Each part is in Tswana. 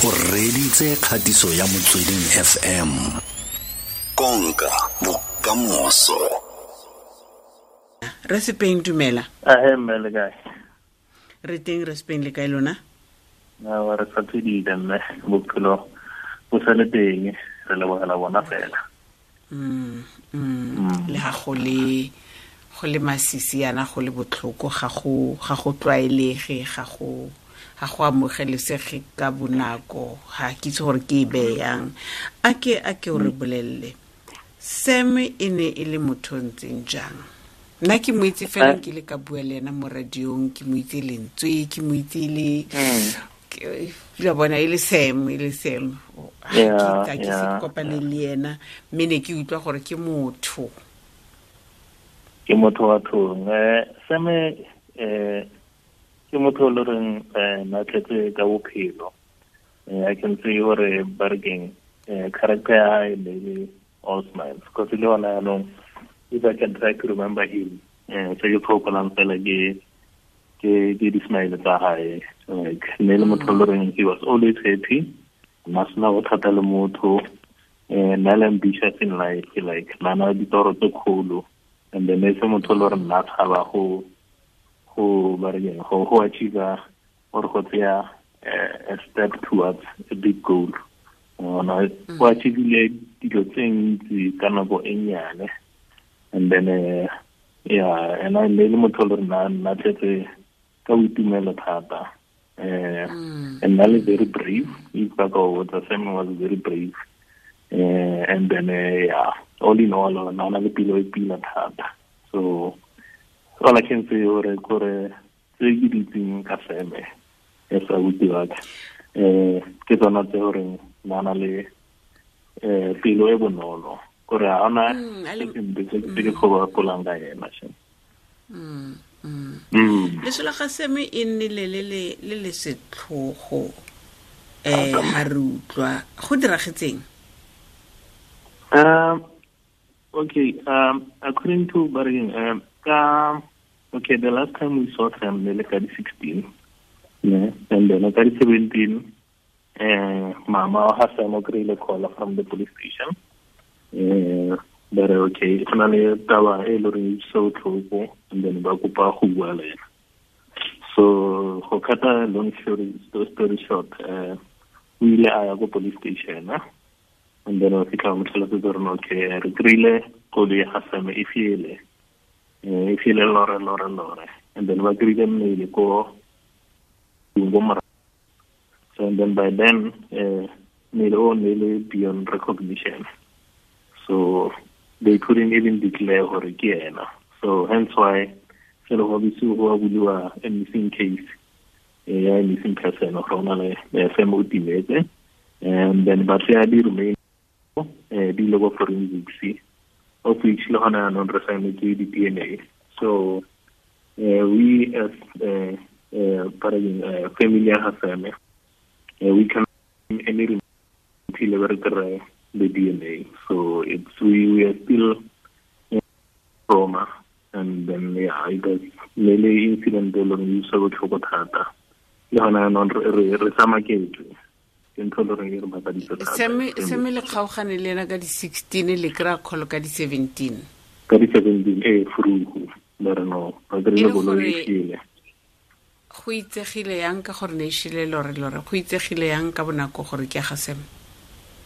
O reditse kgatiso ya Motsweding FM. Konka bokamoso. Re Sepeng, dumela. Ahe mme, le kae? Re teng re Sepeng, le kae lona? Awa, re sa phedile mme, bophelo bo sa le teng, re lebogela bona fela. Le ga go le go le masisi yana, go le botlhoko, ga go tlwaelege, ga go amogelesege ka bonako. Ga ke itse gore ke e beyang. A ke o re bolelele, Sam e ne e le motho o ntseng jang? Nna ke mo itse fela ke le ka bua le ena mo radiong, ke mo itse lentswe, ke mo itse le la bona e le Sam, e le Sam. Ga ke se kopane le ena, mme ne ke utlwa gore ke motho. Ke motho wa thong. Sam ke motho o le reng na tletse ka bophelo. I can say gore ba re keng, character ya hae ne le all smiles, because le hona yaanong, if I can try to remember him, se ke tlhokolang fela ke di-smile tsa hae. Like, ne le motho o le reng he was always happy, na sena bothata le motho, na le ambitious in life, like na na ditoro tse kgolo, and then e se motho o le gore nna tshaba go ba re keng, go achieve or go tseya a step towards a big goal. Ona o achievile dilo tse ntsi ka nako e nnyane. And then yeah, and I le motho o le gore na tletse ka boitumelo thata, and na le very brave. If ba ka o botsa, Sam was very brave. And then yeah, all in all, na na le pelo e pila thata. So all I can say gore kore tse ke di itseng ka Sam as abuti wa ka, ke tsona tse gore na na le pelo e bonolo, gore ga ona se sempe se ke kgobapolang ka ena sha. Leso la ga Sam e nnile le setlhogo ha re utlwa go diragetseng. Okay, according to Bargain, ka okay, the last time we saw them, ne le ka di 16, yeah, and then ka di 17, mama wa ga Sam o kry-ile call from the police station. Ba re okay, go na le taba e le goreng e so tlhoko, and then ba kopa go bua le ena. So go cut a long story short, o ile a ya ko police station, and then wa fitlha mo tlhalosetsa gore okay, re kry-ile koloi ya ga Sam e fiele, e fiele lore lore lore, and then ba kry-ile mmele ko morago. So and then by then, mmele o ne le beyond recognition, so they couldn't even declare gore ke ena. So hence why se le go bisiwa go buliwa a missing case, ya missing person, gore o na le Sam o timetse. And then ba tseya di-remain, di ile ko forensics, of which le gona yaanong re saenetse di-DNA. So we as family ya ga Sam, we can any until re kry the DNA. So it's we are still trauma. And then yeah, it was ne le incident e leng e utlwisa botlhoko thata. Le gona yaanong re tsamaketswe ke ntho e le goreng e re makaditse thata. Sam le kgaogane le ena ka di-16, le kry-a call ka di-17. Ka di-17 ee, frugu ba re no, ba kry-ile E le koloi e gore- fiele. Go itsegile yang ka gore ne e shile lore lore? Go itsegile yang ka bonako gore ke ya ga Sam?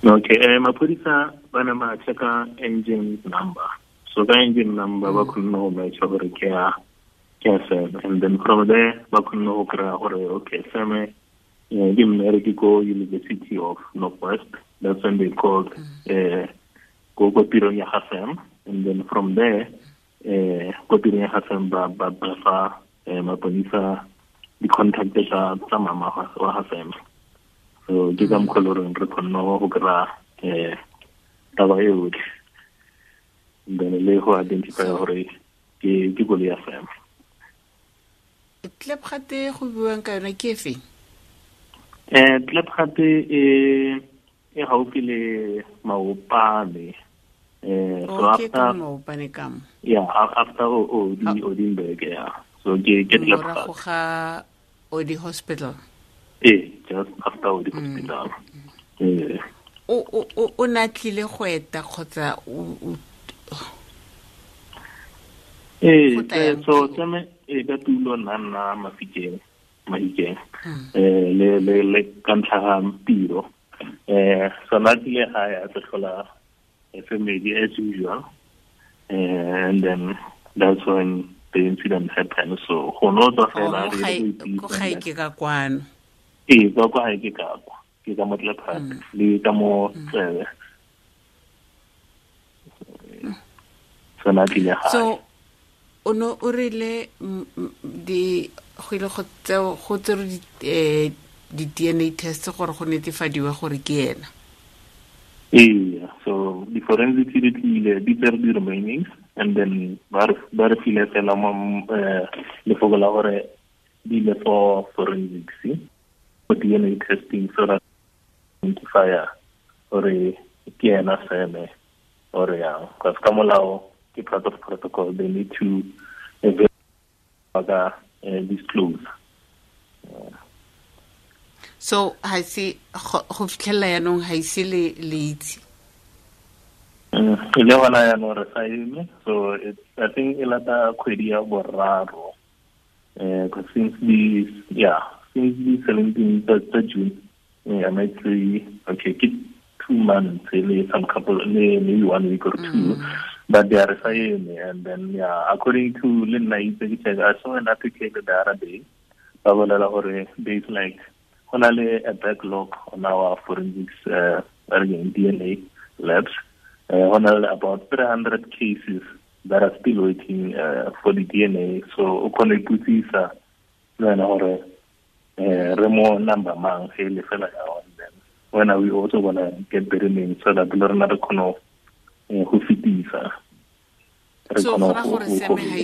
Okay, maphodisa ba ne ba checka engine number. So ka engine number ba kgonne go matcha gore ke ya Sam, and then from there ba kgonne go kry-a gore okay, Sam ke mmereki ko University of Northwest. That's when they called ko tirong ya ga Sam, and then from there, ko tirong ya ga Sam ba fa maponisa di-contact tsa mama wa ga Sam. So ke ka mokgwa e le goreng re kgonne go kry-a taba e yotlhe, and then le go identify gore ke koloi ya Sam. Klipgat go buang ka yona ke efe? Klipgat e gaufi le Maopane. So Okay, ka after Maopane ka mo. Yeah, after Odi Odinberg, yeah. So ke Morago Klipgat. ga Odi Hospital. Ee, just after o di hospital. Ee. O na tlile go eta kgotsa o? Ee, so tsame e ka tulo nna Mafikeng, Mahikeng, le ka ntlha ga tiro. So na tlile gae a tlo tlhola family as usual, and then that's when the incident happened. So go no tswa fela re go gae ke ka kwano. Ee, kwa gae ke ka kwa, ke ka mo Tlephate le ka mo Tsebe. So na tlile gae. So o no o rile di go ile go tseo go tsere di DNA test gore go netefadiwe gore ke ena. Ee, so di forensics di tlile, di tsere di remainings, and then ba re file fela mo lefoko la gore di ile for forensics for DNA testing, so that identify gore ke ena seme or yang, because ka molao ke part of protocol, they need to disclose. So ha se go fitlhela yanong ha ise le itse. Le gona yanong re sa eme. So it's, I think e lata kgwedi ya boraro. Because since the 17th of June, I might say, okay, ke 2 months, some couple, maybe 1 week or two, but they are saying, and then yeah, according to Linna, I saw an article the other day, there's like a backlog on our forensics DNA labs, about 300 cases that are still waiting for the DNA. So remo number mang hele fela ya on them. When are we also gonna get the remains so that le rena re kgone go fetisa. So gora gore seme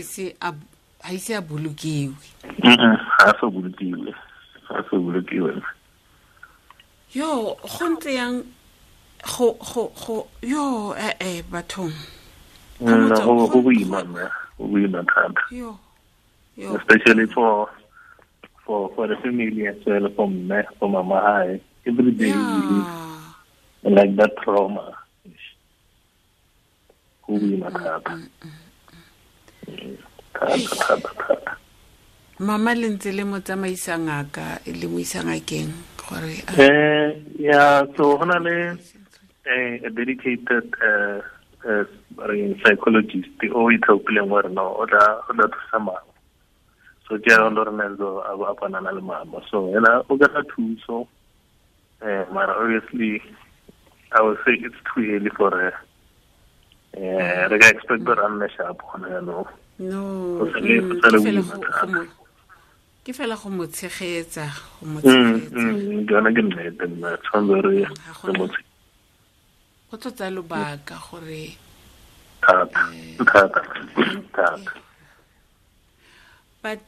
ha ise a bolokiwe. Ha so bolokiwe. Ha so bolokiwe. Yo, go ntse yang go yo bathong. No, go boima, go boima thata. Yo. Especially for the family as well, for me, for mama, every day we live like that trauma. Go boima thata. Thata. Mama le ntse le mo tsamaisa ngaka, le mo isa ngakeng gore yeah, so hona le a dedicated psychologist o ithaopileng gore no o tla thusa mama. So ke a Lorenzo a bonana le mama. So ena o kry-a thuso, mara obviously I would say it's too early for her. Re ka expect gore a nne sharp gona jaanong. No, ke fela go mo tshegetsa, go mo tshegetsa. Ke yona ke nnete nna, tshwanetse re mo tshegetsa. Go tlo tsaya lobaka gore thata. But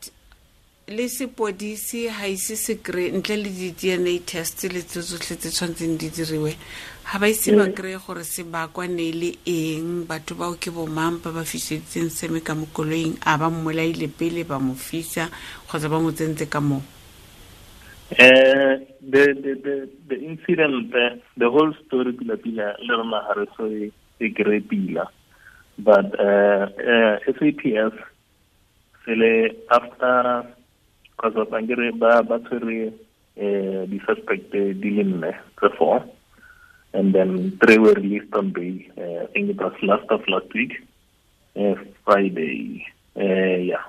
le sepodisi ha ise se kry ntle le di-DNA test le tse tsotlhe tse tshwanetseng di diriwe, ha ba ise ba kry-e gore se bakwa ne le eng, batho bao ke bomang ba ba fiseditseng seme ka mo koloing, a ba mmolaile pele ba mo fisa kgotsa ba mo tsentse ka moo. The incident, the whole story pila pila le rona ha re so e kry pila, but SAPS sele after because of angere ba tshwere di suspect di le nne tse 4, and then 3 were released on bail. I think it was last week, Friday. Yeah,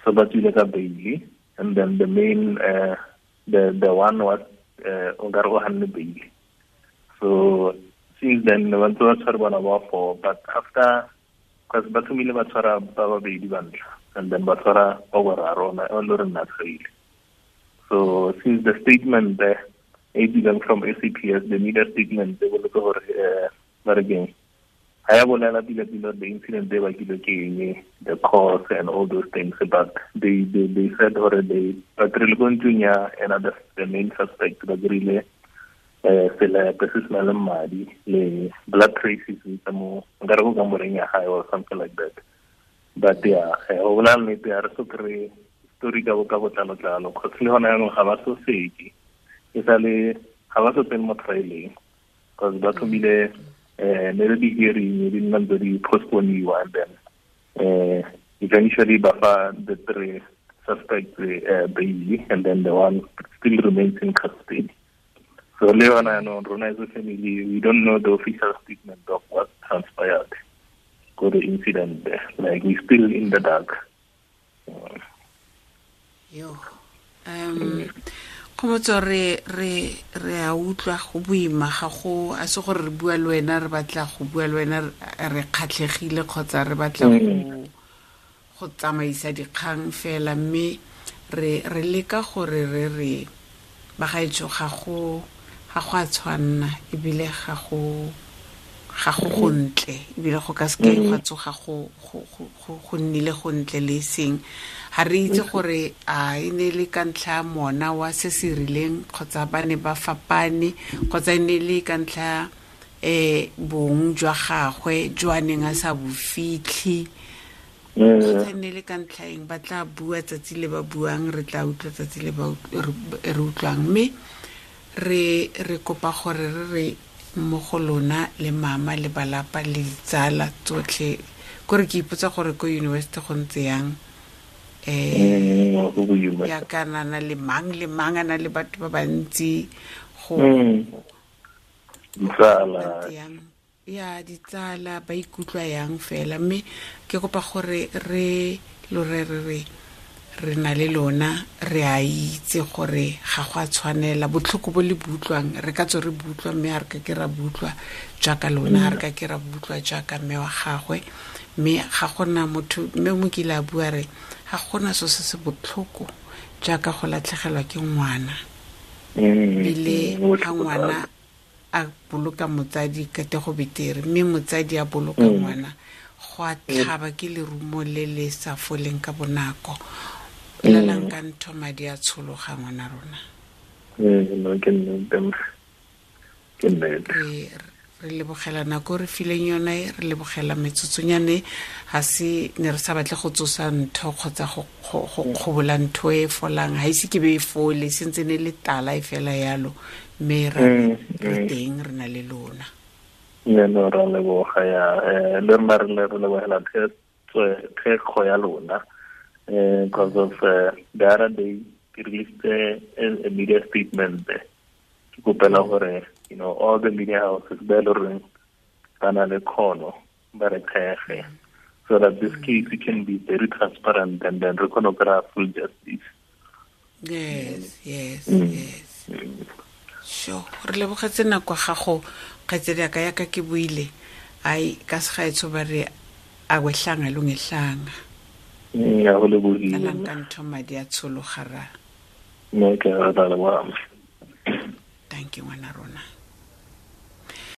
so ba tswile ka bail, and then the main the one was o ka re o hanne bail. So since then ba ntse ba tshwere bana ba 4, but after because ba thomile ba tshwara ba babedi ba ntlha, and then ba tshwara ba boraro o le re nna tshwaile. So since the statement there e from SAPS, the media statement they boletse gore ba re keng ha ya bolela pila pila the incident they bakile ke eng, the cause and all those things, but they said gore they ba kry-ile ko ntlong ya ena the main suspect, ba kry-ile selepe se se na le madi le blood traces tsa mo nkare go kamoreng ya gae or something like that. But yeah, go bolela nnete ha re so kry story ka botlalo-tlalo, cause le gona jaanong ga ba so seke. E sa le ga ba so tsene mo trialeng because ba thomile ne re di-hearing di nna ntse di postponiwa, and then eventually ba fa the three suspects bail, and then the one still remains in custody. So le yona yaanong rona as a family, we don't know the official statement of what transpired go the incident there. Like, we still in the dark. Yo, Kgomotso, re a utlwa, go boima. Ga go a se gore re bua le wena, re batla go bua le wena re kgatlhegile kgotsa re batla go tsamaisa dikgang fela, mme re leka gore re bagaetsho, ga go a tshwanna, ebile ga go gontle, ebile go ka seke gwa tsoga go nnile gontle le seng. Ga re itse gore a e ne le ka ntlha ya mona wa se se rileng, kgotsa ba ne ba fapane, kgotsa e ne le ka ntlha bong jwa gagwe jo a neng a sa bo fitlhe, kgotsa e ne le ka ntlha eng. Ba tla bua tsatsi le ba buang, re tla utlwa tsatsi le ba re utlwang. Mme re kopa gore re mo go lona le mama le balapa le ditsala tsotlhe, kore ke ipotsa gore ko university go ntse yang. Go boima. Ya kana na le mang le mang, a na le batho ba bantsi go Ditsala. Ntse yang ya ditsala, ba ikutlwa yang fela. Mme ke kopa gore re lo re na le lona, re a itse gore ga go a tshwanela. Botlhoko bo le butlwang, re ka tswe re butlwa, mme ga re ka ke ra butlwa jaaka lona, ga re ka ke ra butlwa jaaka mme wa gagwe. Mme ga gona motho, mme mo kile a bua re ga gona so se se botlhoko jaaka go latlhegelwa ke ngwana, ebile ga ngwana a boloka motsadi ka te go betere, mme motsadi a boloka ngwana go a tlhaba, ke lerumo le le sa foleng ka bonako. Lalang ka ntho, madi a tshologa, ngwana rona. No, ke nnete, ke nnete. Re lebogela nako re fileng yone, re lebogela metsotsonyane. Ga se ne re sa batle go tsosa ntho kgotsa go kgobola ntho e folang, ga ise ke be e fole, sentse ne le tala e fela yalo, mme re teng, re na le lona. Ne no, ra leboga ya le rona, re lebogela thekgo ya lona, because of the other day ke released a media statement ke kopela gore all the media houses ba e le goreng ba na le kgono ba re thege, so that this case can be very transparent and then re kgone go kry-a full justice. yes yes Yes, sure, re lebogetse nako ya gago, kgaitsedi yaka. Yaka ke buile ai ka segaetsho, ba re akwehlanga lungehlanga. Ya go lebogile. Lalang ka ntho, madi a tshologa ra. No, ke re tla leboga.